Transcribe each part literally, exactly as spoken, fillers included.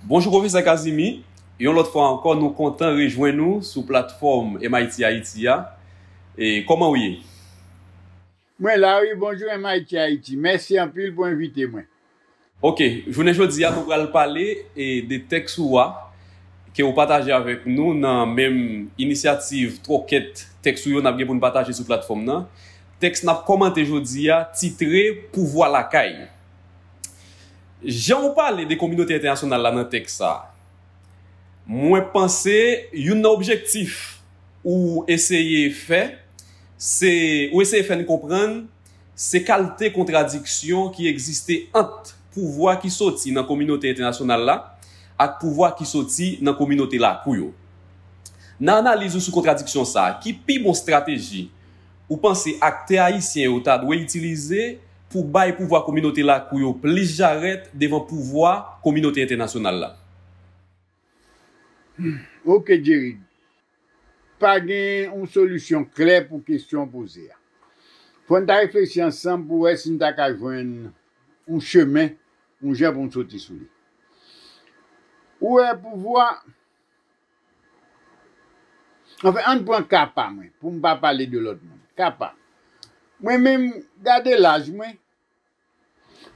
Bonjou, Pwofesè Kazimi. Yon lòt fwa ankò, nou kontan rejwenn ou sou platfòm M I T Haiti a. E kòman w ye? Mwen la wi, bonjou M I T Haiti. Mèsi anpil pou envite mwen. Ok, jounen jodi a, nou pral pale e, de tèks ou a, ke w pataje avèk nou nan menm inisyativ twòkèt tèks ou yo n ap gen pou n pataje sou platfòm nan. Tèks n ap kòmante jodi a, titre Pouvwa Lakay. Jan w pale de kominote entènasyonal la nan tèks sa a, mwen panse youn nan objektif ou eseye fè, se, ou eseye fè n konprann, se kalte kontradiksyon ki egziste ant pouvwa ki soti nan kominote entènasyonal la ak pouvwa ki soti nan kominote lakou yo. Nan analiz ou sou kontradiksyon sa a, ki pi bon estrateji ou panse aktè ayisyen yo ta dwe itilize pou bay pouvwa kominote lakou yo plis jarèt devan pouvwa kominote entènasyonal la? Ok, Jerry. Pa gen yon solisyon klè pou kesyon w poze a. Fò n ta reflechi ansanm pou wè si n ta ka jwenn yon chemen, yon jan pou n soti sou li. Ou wè, pouvwa, anfen, ann pran ka pa mwen, pou m pa pale de lòt moun. Ka pa m. Mwen menm, gade laj mwen,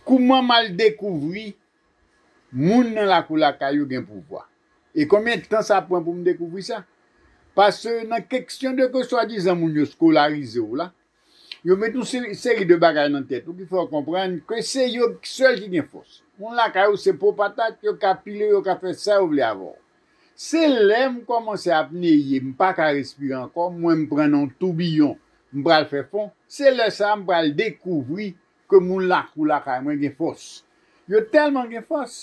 kouman m al dekouvri moun nan lakou lakay yo gen pouvwa? E konbyen tan sa pran pou m dekouvri sa? Paske nan kesyon de ke swadizan moun yo eskolarize w la, yo met yon seri, seri de bagay nan tèt ou ki fè w konprann ke se yo sèl ki gen fòs. Moun lakay ou se po patat, yo ka pile w, yo ka fè sa yo vle avè w. Se lè m kòmanse ap neye, m pa ka respire ankò, m wè m pran nan yon toubiyon, m pral fè fon, se lè sa a m pral dekouvri ke moun lakou lakay mwen gen fòs. Yo tèlman gen fòs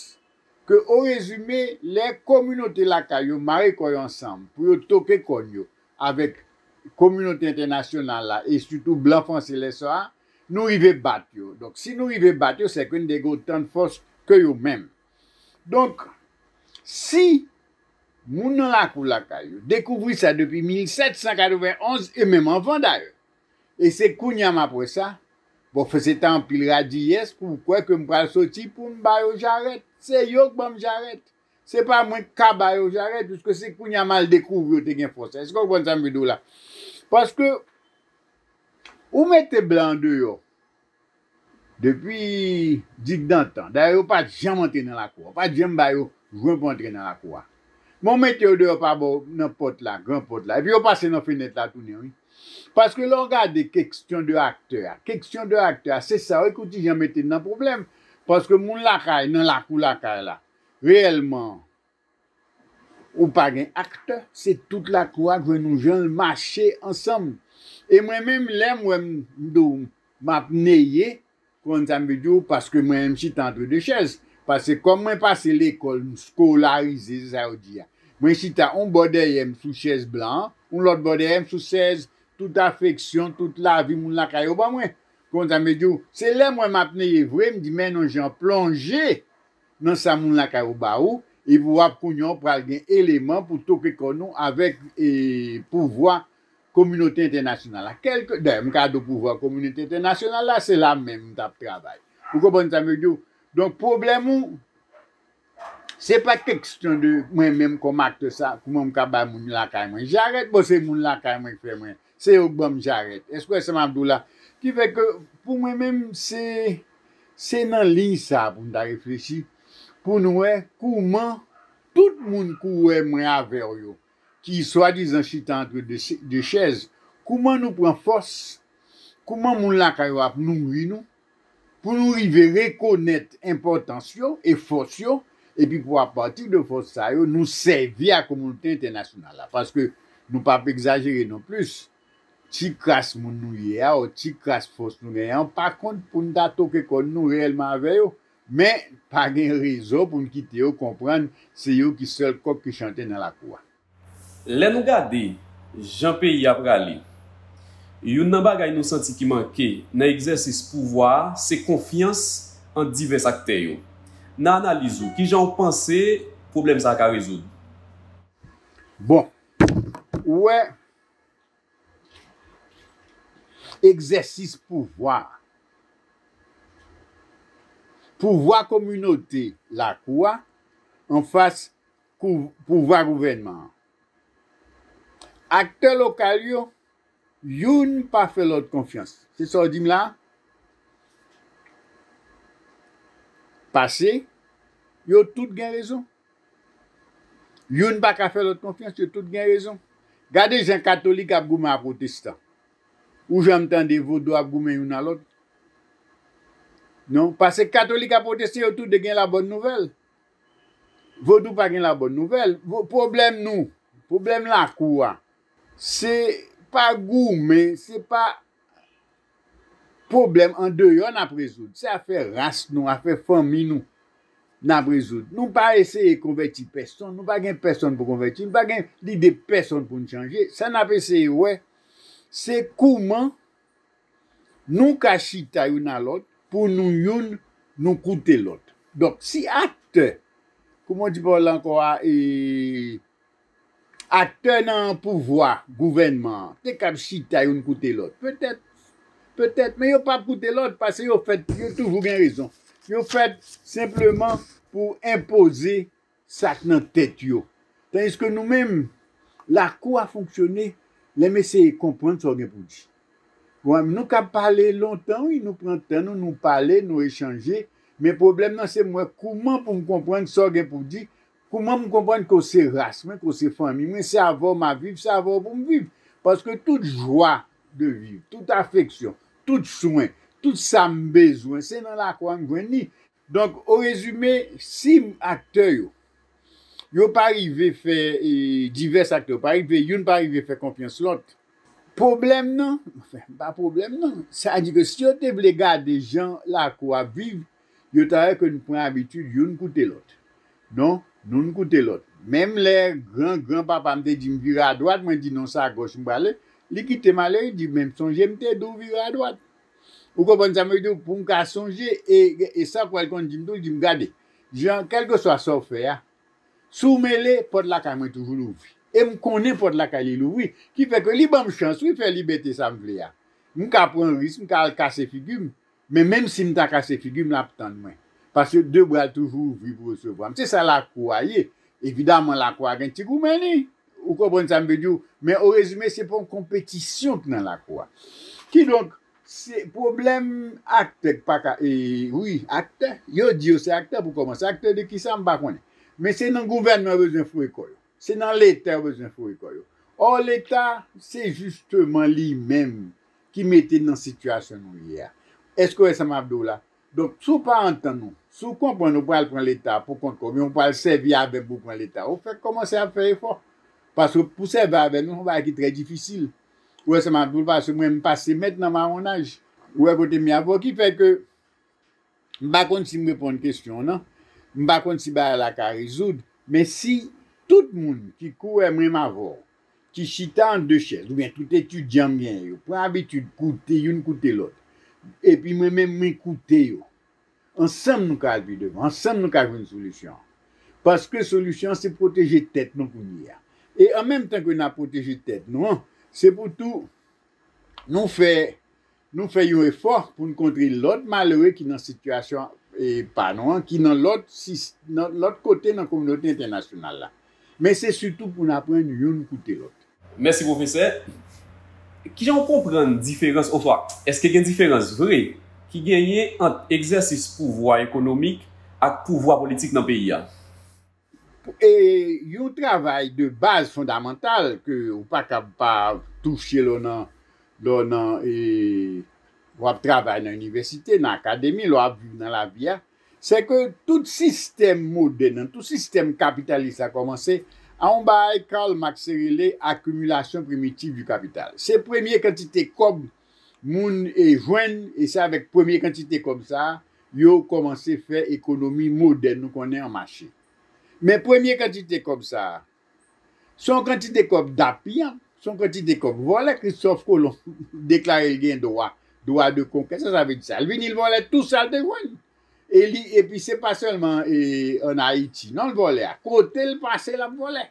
ke, orezime, lè kominote lakay yo mare kò yo ansanm pou yo toke kòn yo avèk kominote entènasyonal la, e sitou blan franse lè sa a, nou rive bat yo. Donk, si nou rive bat yo, sèke n te gen otan de fòs ke yo menm. Donk, si moun nan lakou lakay yo dekouvri sa depi mil sèt san katreven onz, e menm anvan dayè, e se kounye a m ap wè sa, bon, se ta anpil radiyès pou w kwè ke m pral soti pou m ba yo jarèt. Se yo k ban m jarèt. Se pa mwen k ka ba yo jarèt, piske se kounye a m al dekouvri yo te gen fòs. Èske w konprann sa m vle di w la? Paske ou mete blan andeyò depi digdantan. Dayè, yo pa t janm antre nan lakou a. Yo pa t janm ba yo jwen pou antre nan lakou a. Men w mete yo deyò pa bò nan pòt la, gran pòt la. Epi yo pase nan fenèt la tounen, wi. Paske lè w gade kesyon de aktè a, kesyon de aktè a, se sa wi ki w ti jan mete n nan pwoblèm. Paske moun lakay, nan lakou lakay la, reyèlman, ou pa gen aktè, se tout lakou a k jwenn yon jan l mache ansanm. E mwen menm, lè m wè m, m di w, m ap neye, konn sa m vle di w, paske mwen menm m chita antre de chèz. Paske kòm mwen pase lekòl, m eskolarize, se sa yo di a. Mwen chita yon bò dèyè m sou chèz blan an, yon lòt bò dèyè m sou chèz tout afeksyon, tout lavi moun lakay yo ban mwen. Konn sa m vle di w, se lè m wè m ap neye vre, m di men non jan plonje nan sa moun lakay ou ba ou, epi w ap kounye a w pral gen eleman pou toke kò nou avèk e, pouvwa kominote entènasyonal la. Kèlke, dayè, m ka di w pouvwa kominote entènasyonal la, se la menm m t ap travay. Ou konprann sa m vle di w? Donk, pwoblèm ou, se pa kesyon de mwen menm kòm aktè sa, kouman m ka bay moun lakay mwen jarèt, bon, se moun lakay mwen k fè mwen, se yo k ban m jarèt. Èske w wè sa m ap di w la? Ki fè ke, pou mwen menm, se, se nan liy sa a pou n ta reflechi, pou n wè kouman tout moun ki w wè mwen avè w yo, ki swadizan chita antre de, de chèz, kouman nou pran fòs, kouman moun lakay yo ap nouri nou, pou nou rive rekonèt enpòtans yo e fòs yo, epi pou apati de fòs sa yo, nou sèvi a kominote entènasyonal la. Paske nou p ap egzajere non plis, ti kras moun nou ye a, ou ti kras fòs nou genyen an, pa kont pou n ta toke kòn nou reyèlman avè yo. Men, pa gen rezon pou n kite yo konprann se yo ki sèl kòk ki chante nan lakou a. Lè nou gade jan peyi a prale, youn nan bagay nou santi ki manke nan egzèsis pouvwa a se konfyans ant divès aktè yo. Nan analiz ou, kijan w panse pwoblèm sa a ka rezoud? Bon, ou wè, egzèsis pouvwa a, pouvwa kominote lakou a, anfas kou- pouvwa gouvènman an. Aktè lokal yo, youn pa fè lòt konfyans. Se sa w di m la? Pase, yo tout gen rezon. Youn pa ka fè lòt konfyans, yo tout gen rezon. Gade jan katolik ap goumen ak pwotestan. Ou janm tande vodou ap goumen youn a lòt? Non, paske katolik ak pwotestan, yo tou de gen labòn nouvèl. Vodou pa gen labòn nouvèl. Vo- Pwoblèm nou, pwoblèm lakou a, se pa goumen, se pa pwoblèm andeyò n ap rezoud. Se afè ras nou, afè fanmi nou n ap rezoud. Nou pa eseye konvèti pèsonn, nou pa gen pèsonn pou konvèti, nou pa gen lide pèsonn pou n chanje. Sa n ap eseye wè, se kouman nou ka chita youn a lòt, pou nou youn, nou koute lòt. Donk, si aktè, kouman w di pawòl la ankò a, e, aktè nan pouvwa, gouvènman an, te kab chita youn koute lòt. Petèt, petèt, men yo p ap koute lòt, paske yo fèt, yo toujou gen rezon. Yo fèt senpleman pou enpoze sa k nan tèt yo. Tandiske nou menm, lakou a fonksyone lè m eseye konprann sa w gen pou di. Bon, nou ka pale lontan, wi, nou pran tan nou, nou pale, nou echanje, men pwoblèm nan se m wè kouman pou m konprann sa w gen pou di, kouman m konprann ke w se ras mwen, ke w se fanmi mwen, se avè w m ap viv, se avè w pou m viv. Paske tout jwa de viv, tout afeksyon, tout swen, tout sa m bezwen, se nan lakou a m jwenn li. Donk, o rezime, si aktè yo, yo pa rive fè, e, divès aktè, yo pa rive, youn pa rive fè konfyans lòt, pwoblèm nan, anfen, pa pwoblèm nan, sa di ke si yo te vle gade jan lakou ap viv, yo ta wè ke n pran abitid youn koute lòt. Non, nou n koute lòt. Menm lè gran, gran papa m te di m vire adwat, mwen di non, se agòch m prale, li kite m ale, li di, men sonje m te di w vire adwat. Ou konprann sa m vle di w? Pou m ka sonje, e, e sa w pral konn di m tou, li di m, gade, Jan, kèlkeswa sa w fè a, si w mele, pòt lakay mwen toujou louvri. E m konnen pòt lakay li louvri, ki fè ke li ban m chans, wi, fè libète sa m vle a. M ka pran risk, m ka al kase figi m, men menm si m ta kase figi m, l ap tann mwen. Paske de bra l toujou ouvri pou resevwa m. Se sa lakou a ye. Evidaman, lakou a gen ti goumen li. Ou konprann sa m vle di w? Men o rezime, se pa yon konpetisyon k nan lakou a. Kidonk, se pwoblèm aktè k pa ka, e, wi, aktè. Yo di yo se aktè pou kòmanse. Aktè de kisa, m pa konnen. Men se nan gouvènman yo bezwen foure kò yo. Se nan Leta yo bezwen foure kò yo. Ò, Leta, se jisteman li menm ki mete n nan sitiyasyon nou ye a. Èske w wè sa m ap di w la? Donk, si w pa antann ou, si w konprann ou pral pran Leta pou kont kò w, men ou pral sèvi avè m pou pran Leta, ou fèk kòmanse ap fè efò. Paske pou sèvi avè m, se yon bagay ki trè difisil. Ou wè sa m ap di w, paske mwen, m pase mèt nan mawonaj. Ou wè kote m ye avè w, ki fè ke m pa konn si m reponn kesyon w nan, m pa konn si bagay la ka rezoud, men si tout moun ki kou wè menm avè w, ki chita an de chèz, oubyen tout etidyan m genyen yo, pran abitid koute youn koute lòt, epi mwen menm mwen koute yo, ansanm nou ka al pi devan, ansanm nou ka jwenn solisyon an. Paske solisyon an se pwoteje tèt nou kounye a. E an menm tan ke n ap pwoteje tèt nou an, se pou tou nou fè, nou fè yon efò pou n kontre lòt malere ki nan sitiyasyon, e, pa nou an, ki nan lòt sis-, nan lòt kote nan kominote entènasyonal la. Men se sitou pou n aprann youn koute lòt. Mèsi, pwofesè. Kijan w konprann diferans, oswa èske gen diferans vre ki genyen ant egzèsis pouvwa ekonomik ak pouvwa politik nan peyi a? E yon travay de baz fondamantal ke ou pa kab pa touche lè w nan, lè w nan, e, w ap travay nan inivèsite, nan akademi, lè w ap viv nan lavi a, se ke tout sistèm modèn nan, tout sistèm kapitalis la kòmanse a yon bagay Karl Marx te rele accumulation primitive du capital. Se premye kantite kòb moun, e, jwenn, e se avèk premye kantite kòb sa a, yo kòmanse fè ekonomi modèn nou konnen an mache. Men premye kantite kòb sa a, se yon kantite kòb dappiyanp, se yon kantite kòb vòlè. Christophe Colomb deklare l gen dwa, dwa de konkè. Sa sa vle di sa? L vini, l vòlè tou sa l te jwenn. E li, epi se pa sèlman, e, ann Ayiti. Non, l vòlè a. Kote l pase, l ap vòlè.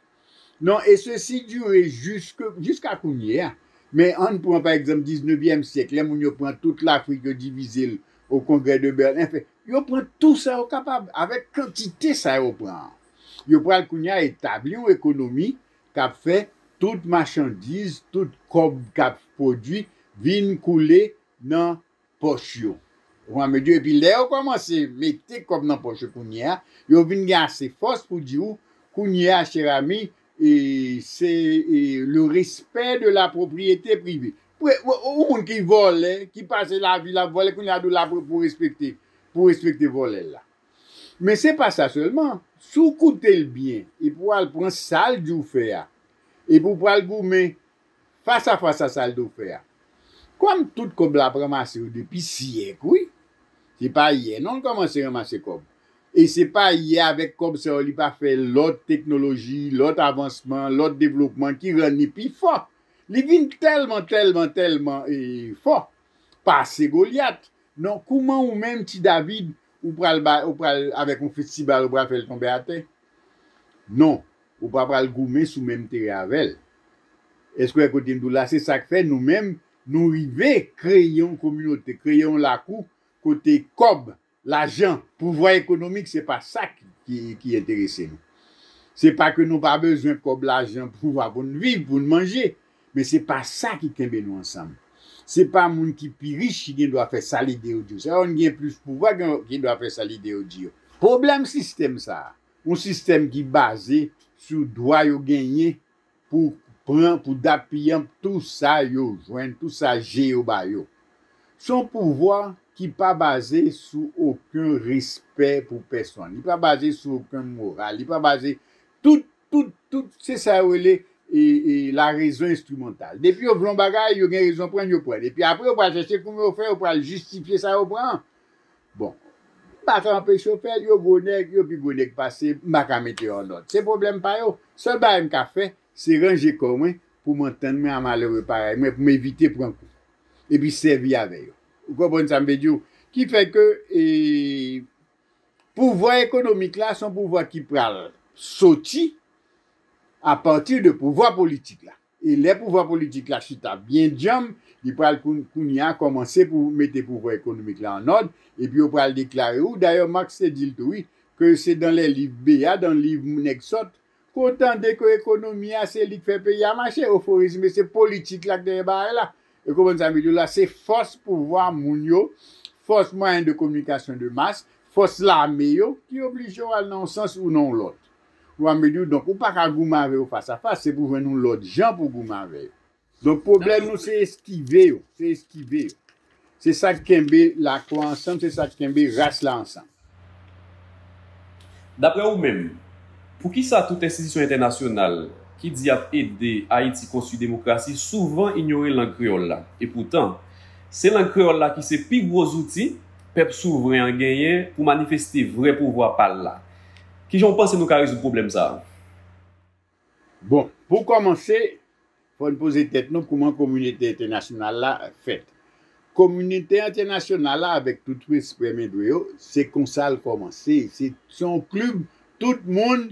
Non, e sesi dire jiske, jiska kounye a. Men ann pran, pa egzanp, diznevyèm syèk, lè moun yo pran tout Lafrik, yo divize l o Kongrè de Bèlen. Anfen, yo pran tou sa yo kapab, avèk kantite sa yo pran an. Yo pral kounye a etabli yon ekonomi k ap fè tout machandiz, tout kòb k ap pwodui vin koule nan pòch yo. Ou konprann, epi lè yo kòmanse mete kòb nan pòch yo kounye a, yo vin gen ase fòs pou di w, kounye a, chè ami, e, se e, le respect de la propriété privée. Pou yon moun ki vòlè, ki pase lavi l ap vòlè, kounye a di w la pou, pou respekte, pou respekte vòlè l la. Men se pa sa sèlman. Si w koute l byen, epi w al pran sa l di w fè a, epi w pral goumen fas a fas a sa l di w fè a. Kòm tout kòb la ap ranmase yo depi syèk, wi. Se pa yè non l kòmanse ranmase kòb. E se pa yè avèk kòb sa yo li pa fè lòt teknoloji, lòt avansman, lòt devlopman ki rann li pi fò. Li vin tèlman, tèlman, tèlman e, fò. Pase Golyat. Non, kouman ou menm, ti David, ou pral ba, ou pral avèk yon fistibal, ou pral fè l tonbe atè? Non, ou pa pral goumen sou menm teren avè l. Èske w wè kote m di w la? Se sa k fè nou menm, nou rive kreye yon kominote, kreye yon lakou kote kòb, lajan, pouvwa ekonomik, se pa sa ki, ki, ki enterese nou. Se pa ke nou pa bezwen kòb, lajan, pouvwa pou n viv, pou n manje, men se pa sa ki kenbe nou ansanm. Se pa moun ki pi rich ki gen dwa fè sa lide yo di yo. Se pa moun ki gen plis pouvwa ki gen dwa fè sa lide yo di yo. Pwoblèm sistèm sa a, yon sistèm ki baze sou dwa yo genyen pou pran, pou dappiyanp tou sa yo jwenn, tou sa je yo ba yo. Se yon pouvwa ki pa baze sou okenn respè pou pèsonn. Li pa baze sou okenn moral. Li pa baze, tout, tout, tout, se sa yo rele e, e, la raison instrumentale. Depi yo vle yon bagay, yo gen rezon pran l, yo pran l. Epi apre, yo pral chèche kouman yo fè, yo pral jistifye sa yo pran an. Bon, m pa ka anpeche yo fè l, yo gwo nèg, yo pi gwo nèg pase m, m pa ka mete yo an òd. Se pwoblèm pa yo. Sèl bagay m ka fè, se ranje kò mwen pou m antann mwen a malere parèy mwen, pou m evite pran kou. Epi sèvi avè yo. Ou konprann sa m vle di w? Ki fè ke e, pouvwa ekonomik la, se yon pouvwa ki pral soti apati de pouvwa politik la. E lè pouvwa politik la chita byen djanm, li pral koun-, kounye a kòmanse pou mete pouvwa ekonomik la an òd, epi yo pral deklare, ou dayè Marx te di l tou, wi, ke se dans les livres B A, dans liv nèg sòt, ke w tande ke ekonomi a se li k fè peyi a mache. Oforizm, se politik la k dèyè bagay la. Ou konprann sa m vle di w la? Se fòs pouvwa moun yo, fòs mwayen de kominikasyon de mas, fòs lame yo ki oblije w al nan yon sans ou nan yon lòt. Ou a me di w, donk, ou pa ka goumen avè yo fas a fas, se pou jwenn yon lòt jan pou goumen avè yo. Donk, pwoblèm nou, se eskive yo, se eskive yo. Se sa k kenbe lakwa ansanm, se sa k kenbe ras la ansanm. Daprè ou menm, poukisa tout enstitisyon entènasyonal ki di y ap ede Ayiti konstwi demokrasi souvan inyore lang kreyòl la? Epoutan, se lang kreyòl la ki se pi gwo zouti pèp souvren an genyen pou manifeste vrè pouvwa pa l la. Kijan w panse nou ka rezoud pwoblèm sa a? Bon, pou kòmanse, fò n poze tèt nou kouman kominote entènasyonal la fèt. Kominote entènasyonal la, avèk tout respè m dwe yo, se konsa l kòmanse. Se, se yon klib, tout moun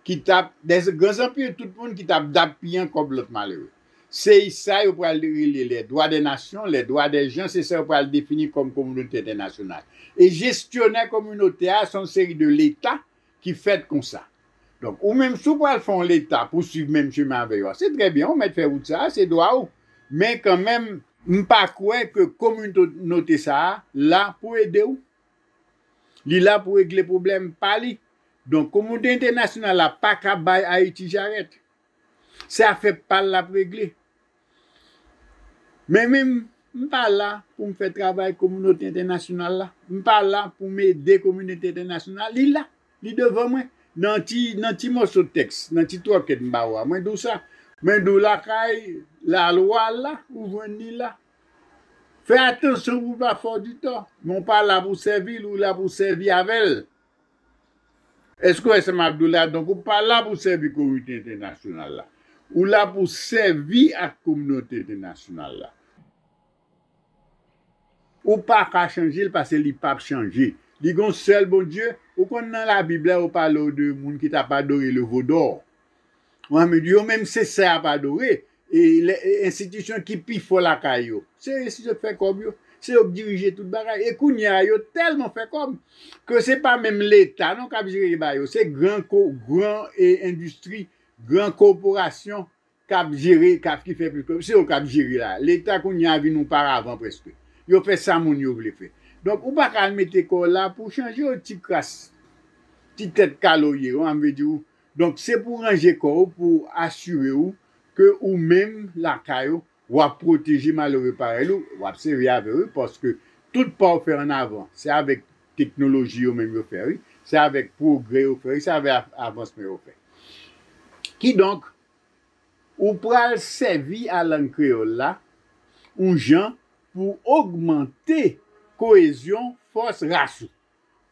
ki t ap, dè gran zanpil, tout moun ki t ap dappiyan kòb lòt malere. Se sa yo pral rele les droits des nations, les droits des gens, se sa yo pral defini kòm kominote entènasyonal. E jesyonè kominote a, se yon seri de leta ki fèt konsa. Donk, ou menm, si w pral fè yon leta pou swiv menm chemen avè yo a, se trè byen, ou mèt fè wout sa a, se dwa ou. Men kanmenm, m pa kwè ke kominote sa a la pou ede w. Li la pou regle pwoblèm pa li. Donk, kominote entènasyonal la pa ka bay Ayiti jarèt. Se afè pa l l ap regle. Men menm, m pa la pou m fè travay kominote entènasyonal la. M pa la pou m ede kominote entènasyonal. Li la, li devan mwen. Nan ti, nan ti mòso tèks, nan ti twòkèt m ba ou a, mwen di w sa. Mwen di w lakay, lalwa la, ou jwenn li la. Fè atansyon pou w pa fè w di tò. Men w pa la pou w sèvi l, ou la pou w sèvi avè l. Èske w wè sa m ap di w la? Donk, ou pa la pou w sèvi kominote entènasyonal la. Ou la pou w sèvi ak kominote entènasyonal la. Ou pa ka chanje l paske li p ap chanje. Li gen yon sèl Bondye. Ou konn nan Labib la, yo pale w de moun ki t ap adore le veau d'or. Ou a me di yo menm se sa y ap adore. E lè, e enstitisyon ki pi fò lakay yo, se enstitisyon k fè kòb yo. se yo k dirije tout bagay. E kounye a, yo tèlman fè kòb ke se pa menm Leta non k ap jere bagay yo. Se gran ko, gran e, endistri, gran kòporasyon k ap jere, k ap ki fè plis kòb. Se yo k ap jere la. Leta kounye a vin yon paravan prèske. Yo fè sa moun yo vle fè. Donk, ou pa ka al mete kò w la pou chanje yon ti kras, ti tèt kaloye, w ap vle di w. Donk, se pou ranje kò w, pou asire w ke ou menm lakay ou, w ap pwoteje malere parèy ou, w ap sèvi avè w, paske tout pa w fè an avan, se avèk teknoloji yo menm yo fè, wi. Se avèk pwogrè yo fè, wi. Se avèk av-, avansman yo fè. Kidonk, ou pral sèvi a lang kreyòl la yon jan pou ogmante koyezyon fòs ras ou,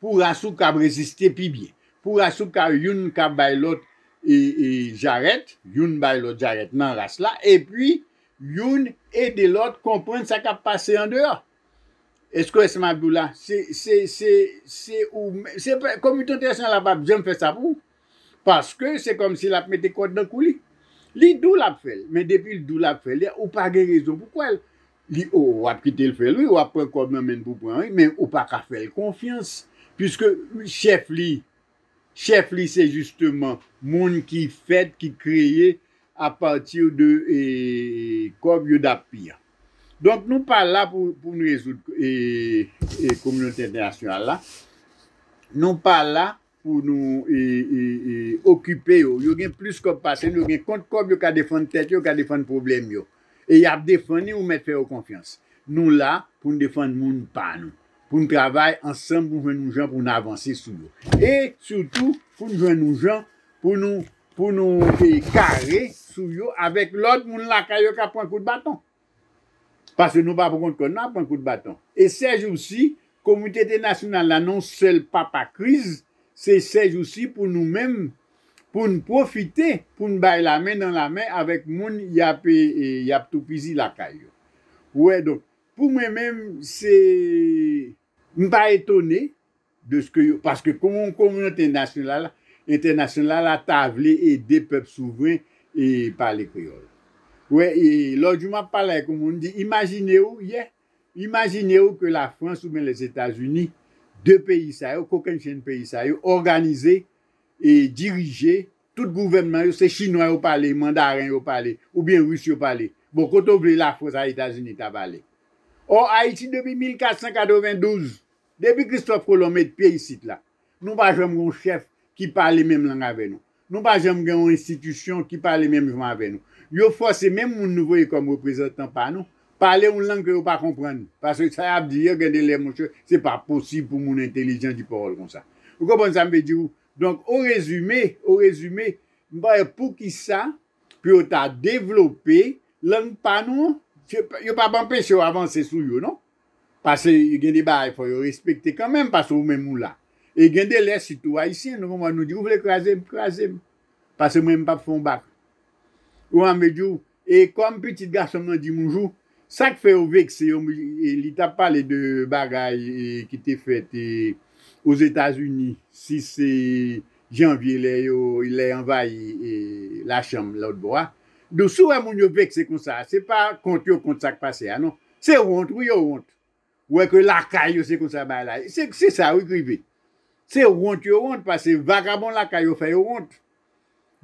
pou ras ou kab reziste pi byen, pou ras ou ka youn ka bay lòt e, e jarèt, youn bay lòt jarèt nan ras la, epi youn ede lòt konprann sa k ap pase andeyò. Èske w wè sa m ap di w la? Se, se, se, se ou, se pa, kominote entènasyonal la p ap janm fè sa pou ou. Paske se kòmsi l ap mete kòd nan kou li. Li di w l ap fè l, men depi l di w l ap fè l, ou pa gen rezon pou kwè l. Li, o, w ap kite l fè l, wi, w ap pran kòb nan men l pou pran, wi, men ou pa ka fè l konfyans. Piske chèf li, chèf li se jisteman moun ki fèt, ki kreye apati de e, kòb UDAPI a. Donk, nou pa la pou, pou n rezoud e, e, kominote entènasyonal la. Nou pa la pou nou e, e, e, okipe yo. Yo gen plis kòb pase nou, yo gen kont kòb, yo ka defann tèt yo, yo ka defann pwoblèm yo. E y ap defann li, ou mèt fè yo konfyans. Nou la pou n defann moun pa nou, pou n travay ansanm, pou n jwenn yon jan pou n avanse sou yo. E sitou, pou n jwenn yon jan pou nou, pou nou e, kare sou yo avèk lòt moun lakay yo k ap pran kout baton. Paske nou pa pou kont kò n, n ap pran kout baton. E sèjousi, kominote entènasyonal la, nan yon sèl papa kriz, se sèjousi pou nou menm, pou n pwofite, pou n bay lamen nan lamen avèk moun y ap, e, e, y ap toupizi lakay yo. Ou wè, donk, pou mwen menm, se, m pa etone de ske yo, paske kòm yon kominote nasyonal, entènasyonal la ta vle ede pèp souvren e pale kreyòl. Wè, e lòt jou m ap pale ak yon moun, m di, imajine w, yè, imajine w ke Lafrans oubyen Lèzetazini, de peyi sa yo, kokennchenn peyi sa yo, òganize e dirije, tout gouvènman yo, se chinwa yo pale, mandaren yo pale, oubyen ris yo pale. Bon, kote w vle Lafrans a Etazini ta pale? Ò, Ayiti depi mil kat san katrevendouz, depi Kristòf Kolon met pye isit la, nou pa janm gen yon chèf ki pale menm lang avè nou. Nou pa janm gen yon enstitisyon ki pale menm jan avè nou. Yo fòse menm moun nou voye kòm reprezantan pa nou, pale yon lang ke yo pa konprann. Paske sa y ap di yo, gen de lè, monchè, se pa posib pou moun entèlijan di pawòl konsa. Ou konprann sa m vle di w? Donk, o rezime, o rezime, m pa wè poukisa pou yo ta devlope lang pa nou an, yo p ap anpeche w avanse sou yo, non. Paske gen de bagay fò yo respekte kanmenm, paske ou menm ou la. E gen de lè, sitou Ayisyen, nou konprann, nou di, ou vle kraze m, kraze m. Paske mwen, m p ap fè yon bak. Ou wè m vle di w, e kòm pitit gason m nan di m yon jou, sa k fè yo vekse yo, e li t ap pale de bagay e, ki te fèt e, Ozetazini, sis e, janvye, lè yo, lè anvayi e, lachanm lòt bò a. Donk, si w wè moun yo vekse konsa, se pa kont yo kont sa k pase a, non. Se wont, wi, yo wont. Ou wè ke lakay yo, se konsa bagay la ye. Se, se sa, wi, k rive. Se wont yo wont, paske vagabon lakay yo fè yo wont.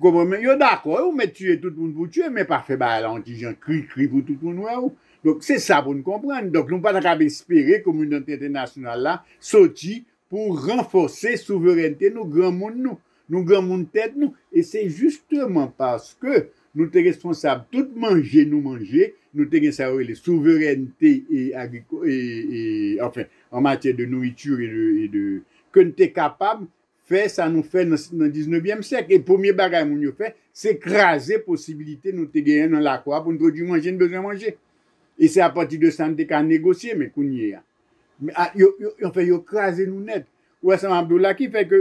Ou konprann? Men yo dakò, yo mèt tiye tout moun pou tiye, men pa fè bagay la yon ti jan kri kri pou tout moun wè w. Donk, se sa pou n konprann. Donk, nou pa ta kab espere kominote entènasyonal la soti pou ranfòse souverènte nou, granmoun nou, nou granmoun tèt nou. E se jisteman paske nou te responsab tout manje nou manje, nou te gen sa yo rele souverènte e agriko-, e, e, anfen, an matyè de nouriti e de, e de, ke n te kapab fè sa nou fè nan, nan diznevyèm syèk. E premye bagay moun yo fè, se kraze posibilite nou te genyen nan lakou a pou n pwodui manje n bezwen manje. E se apati de sa n te ka negosye, men kounye a, men, a, yo, yo, anfen, yo kraze nou nèt. Ou wè sa m ap di w la ki fè ke,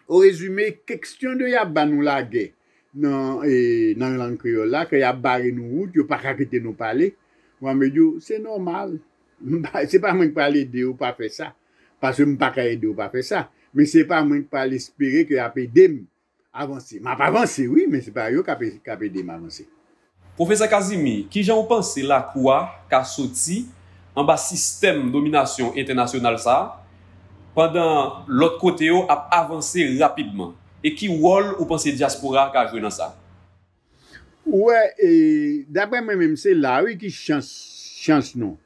o rezime, kestyon de y ap ba nou lagè nan, e, nan lang kreyòl la, ke y ap bare nou wout, yo pa ka kite nou pale. Mwen, m di w, se nòmal. M pa, se pa mwen k pral ede w pa fè sa. Paske m pa ka ede w pa fè sa. Men se pa mwen k pral espere ke y ap ede m avanse. M ap avanse, wi, men se pa yo k ap, k ap ede m avanse. Pwofesè Casimir, kijan w panse lakou a ka soti anba sistèm dominasyon entènasyonal sa a, pandan lòt kote yo ap avanse rapidman? E ki wòl ou panse dyaspora a ka jwe nan sa? Ou wè, e, daprè mwen menm, se la wi ki chans, chans nou.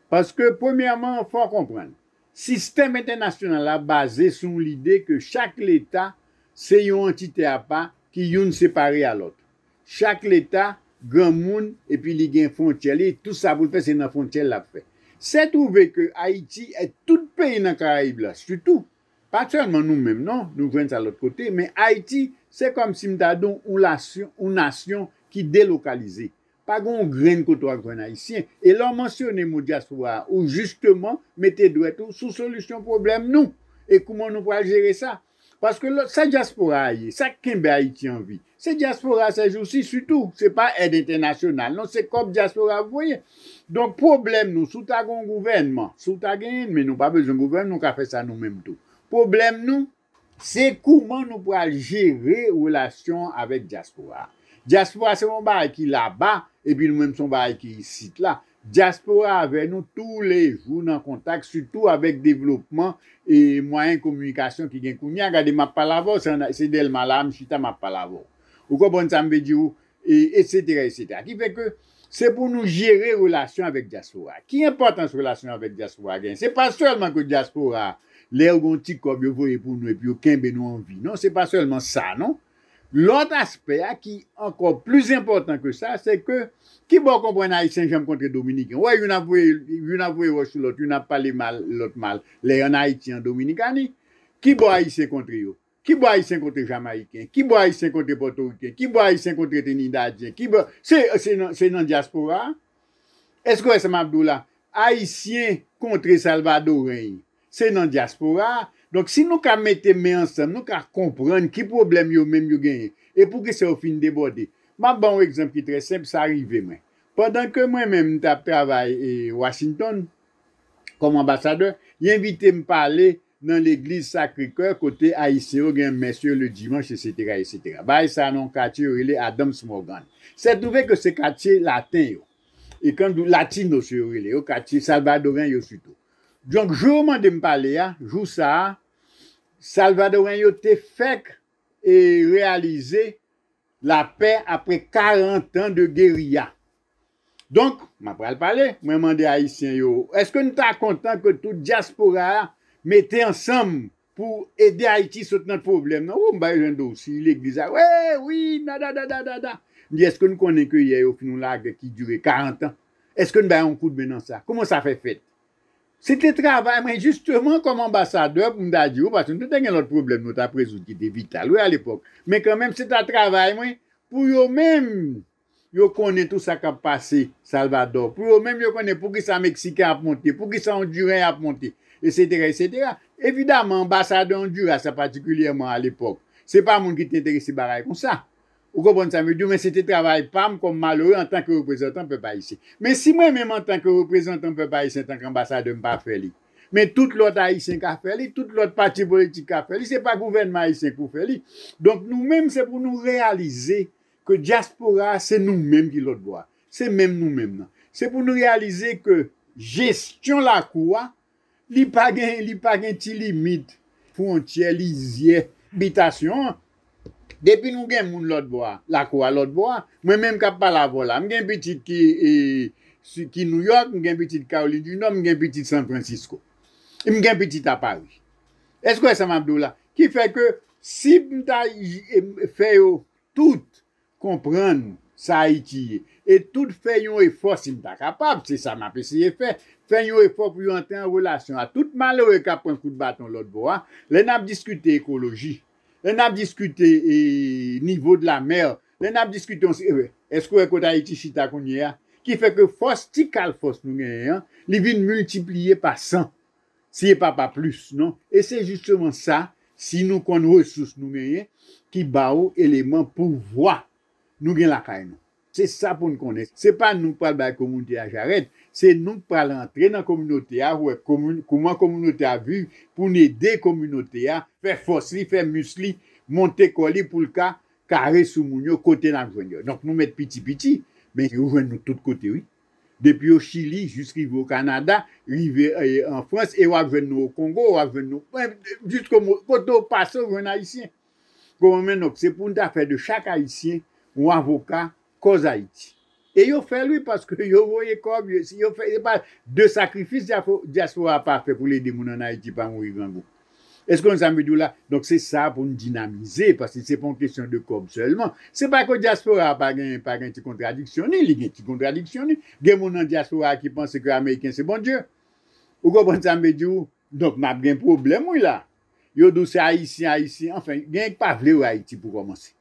Paske, premyèman, fò w konprann, sistèm entènasyonal la baze sou yon lide ke chak leta se yon antite apa ki youn separe a lòt. Chak leta granmoun epi li gen fwontyè li, tout sa pou l fè se nan fwontyè l l ap fè. Se twouve ke Ayiti e tout peyi nan Karayib la, sitou, pa sèlman nou menm non, nou jwenn sa lòt kote, men Ayiti se kòmsi m ta di w yon lasyon, yon nasyon ki delokalize. Pa gen yon grenn kote w ap jwenn Ayisyen. E lè w mansyone mo dyaspora a, ou jisteman mete dwèt ou sou solisyon pwoblèm nou. E kouman nou pral jere sa? Paske lòt, sa dyaspora a ye, sa k kenbe Ayiti an vi, se dyaspora a sèjousi sitou. Se pa èd entènasyonal non, se kòb dyaspora ap voye. Donk pwoblèm nou, si w ta gen yon gouvènman, si w ta genyen l, men nou pa bezwen gouvènman, nou ka fè sa nou menm tou. Pwoblèm nou, se kouman nou pral jere relasyon avèk dyaspora a. Dyaspora se yon bagay ki laba, epi nou menm se yon bagay ki isit la. Dyaspora avè nou toulejou nan kontak, sitou avèk devlopman e mwayen kominikasyon ki gen kounye a. Gade, m ap pale avè w, se ann-, se Dèlma la a m chita, m ap pale avè w. Ou konprann sa m vle di w? E, etsetera, etsetera. Ki fè ke se pou nou jere relasyon avèk dyaspora. Ki enpòtans relasyon avèk dyaspora genyen? Se pa sèlman ke dyaspora, lè yo gen yon ti kòb yo voye pou nou epi yo kenbe nou an vi. Non, se pa sèlman sa, non. Lòt aspè a ki ankò pli enpòtan ke sa, se ke kibò w konprann Ayisyen janm kontre Dominiken? Ou wè, youn ap voye, youn ap voye wòch sou lòt, youn ap pale mal lòt mal, lè y ann Ayiti, an Dominikani. Kibò Ayisyen kontre yo? Kibò Ayisyen kontre Jamayiken? Kibò Ayisyen kontre Pòtoriken? Kibò Ayisyen kontre Trinidadyen? Kibò, se, se nan, se nan dyaspora a? Èske w wè sa m ap di w la? Ayisyen kontre Salvadoren, se nan dyaspora a. Donk, si nou ka mete men ansanm, nou ka konprann ki pwoblèm yo menm yo genyen, e poukisa yo fin debòde. M ap ba w yon egzanp ki trè senp, sa rive mwen. Pandan ke mwen menm, m t ap travay e Washington, kòm anbasadè, y envite m pale nan legliz Sacré-Cœur kote Ayisyen yo gen mès yo le dimanch, etsetera, etsetera. Bagay sa nan yon katye yo rele Adams Morgan. Se twouve ke se katye laten yo. E kan nou di latinos yo rele yo, katye salvadoren yo sitou. Donk, jou yo mande m pale a, jou sa a, salvadoren yo te fèk e reyalize lapè apre karant an de geriya. Donk, m ap pral pale, mwen mande Ayisyen yo, èske n ta kontan ke tout dyaspora a mete ansanm pou ede Ayiti sot nan pwoblèm nan? Ou, m bay jan do si legliz a, wi, wi, nada, dada, dada. M di, èske n konnen ke yè yo fin yon lagè ki dire karant an? Èske n bay yon kout men nan sa? Kòman sa fè fèt? Se te travay mwen, jisteman, kòm anbasadè, pou m ta di w, paske nou te gen lòt pwoblèm nou t ap rezoud ki te vital, wi, alepòk. Men kanmenm, se ta travay mwen pou yo menm, yo konnen tout sa k ap pase Salvadò, pou yo menm, yo konnen poukisa Meksiken ap monte, poukisa Ondiren ap monte, etsetera, etsetera. Evidaman, anbasadè Ondiras la, patikilyèman alepòk, se pa moun ki te enterese bagay konsa. Ou konprann sa m vle di w, men se te travay pa m kòm malere antanke reprezantan pèp ayisyen. Men si mwen menm antanke reprezantan pèp ayisyen, antanke anbasadè, m pa fè li, men tout lòt ayisyen ka fè li, tout lòt pati politik ka fè li, se pa gouvènman ayisyen k pou fè li. Donk, nou menm, se pou nou reyalize ke dyaspora a, se nou menm ki lòt bò a. Se menm nou menm nan. Se pou nou reyalize ke jesyon lakou a, li pa gen, li pa gen ti limit, fwontyè, lizyè, bitasyon an. Depi nou gen moun lòt bò a, lakou a lòt bò a, mwen menm k ap pale avè w la, m gen pitit ki, e, si, ki Nouyòk, m gen pitit Kawolin di Nò, m gen pitit San Francisco. M gen pitit a Pari. Èske w wè sa m ap di w la? Ki fè ke si m ta, e, fè yo tout konprann sa Ayiti ye, e tout fè yon efò, si m ta kapab, se sa m ap eseye fè, fè yon efò pou yo antre an relasyon a tout malere k ap pran kout baton lòt bò a. Lè n ap diskite ekoloji, lè n ap diskite, e, nivo de la mè, lè n ap diskite yon se-, e, èske w wè kote Ayiti chita kounye a? Ki fè ke fòs, ti kal fòs nou genyen an, li vin miltipliye pa san, si e pa pa plis, non? E se jisteman sa, si nou konn resous nou genyen, ki ba ou eleman pouvwa nou gen lakay nou. Se sa pou n konnen. Se pa nou k pral bay kominote a jarèt, se nou k pral antre nan kominote a, wè komi-, kouman kominote a viv, pou n ede kominote a, fè fòs li, fè mis li, monte kò li pou l ka kare sou moun yo kote n ap jwenn yo. Donk, nou mèt piti piti, men yo jwenn nou tout kote, wi. Depi o Chili, jis rive o Kanada, rive eh, an Frans, e w ap jwenn nou o Kongo, w ap jwenn nou, eh, jis kote w pase, w jwenn Ayisyen. Kòman men, donk, se pou n ta fè de chak Ayisyen yon avoka kòz Ayiti. E yo fè l, wi, paske yo voye kòb, yo, si yo fè, se pa de sakrifis dyafo-, dyaspora pa fè pou l ede moun ann Ayiti pa mouri grangou. Èske w konn sa m vle di w la? Donk, se sa pou n dinamize, paske se pa yon kesyon de kòb sèlman. Se pa ke dyaspora a pa gen, pa gen ti kontradiksyon ni, li gen ti kontradiksyon ni. Gen moun nan dyaspora a ki panse ke Ameriken se Bondye. Ou konprann sa m vle di w? Donk, n ap gen pwoblèm, wi, la. Yo di w se Ayisyen, Ayisyen, anfen, gen k pa vle wè Ayiti pou kòmanse.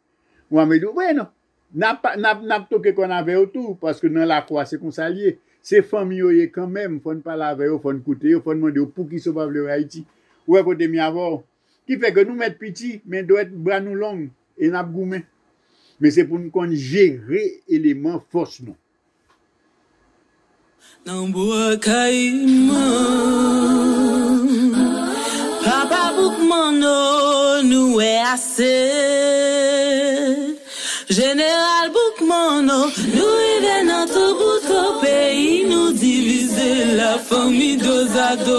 Ou a mete w, wi, non. N ap, n ap, n ap toke kòn avè yo tou, paske nan lakou a, se konsa l ye. Se fanmi yo ye kanmenm, fò n pale avè yo, fò n koute yo, fò n mande yo poukisa yo pa vle wè Ayiti. Ou wè kote m ye avè w. Ki fè ke nou mèt piti, men dwèt bra nou long, e n ap goumen. Men se pou n konn jere eleman fòs nou. Nan bwa Kayiman, papa Boukmanno, nou wè ase. Jeneral Boukmanno, nou rive nan toubouto peyi nou divize, lafanmi dozado.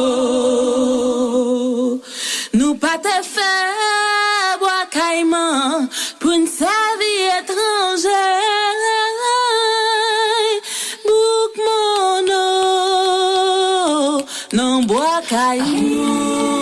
Nou pa te fè bwa Kayiman pou n sèvi etranje. Boukmanno, nan bwa Kayiman.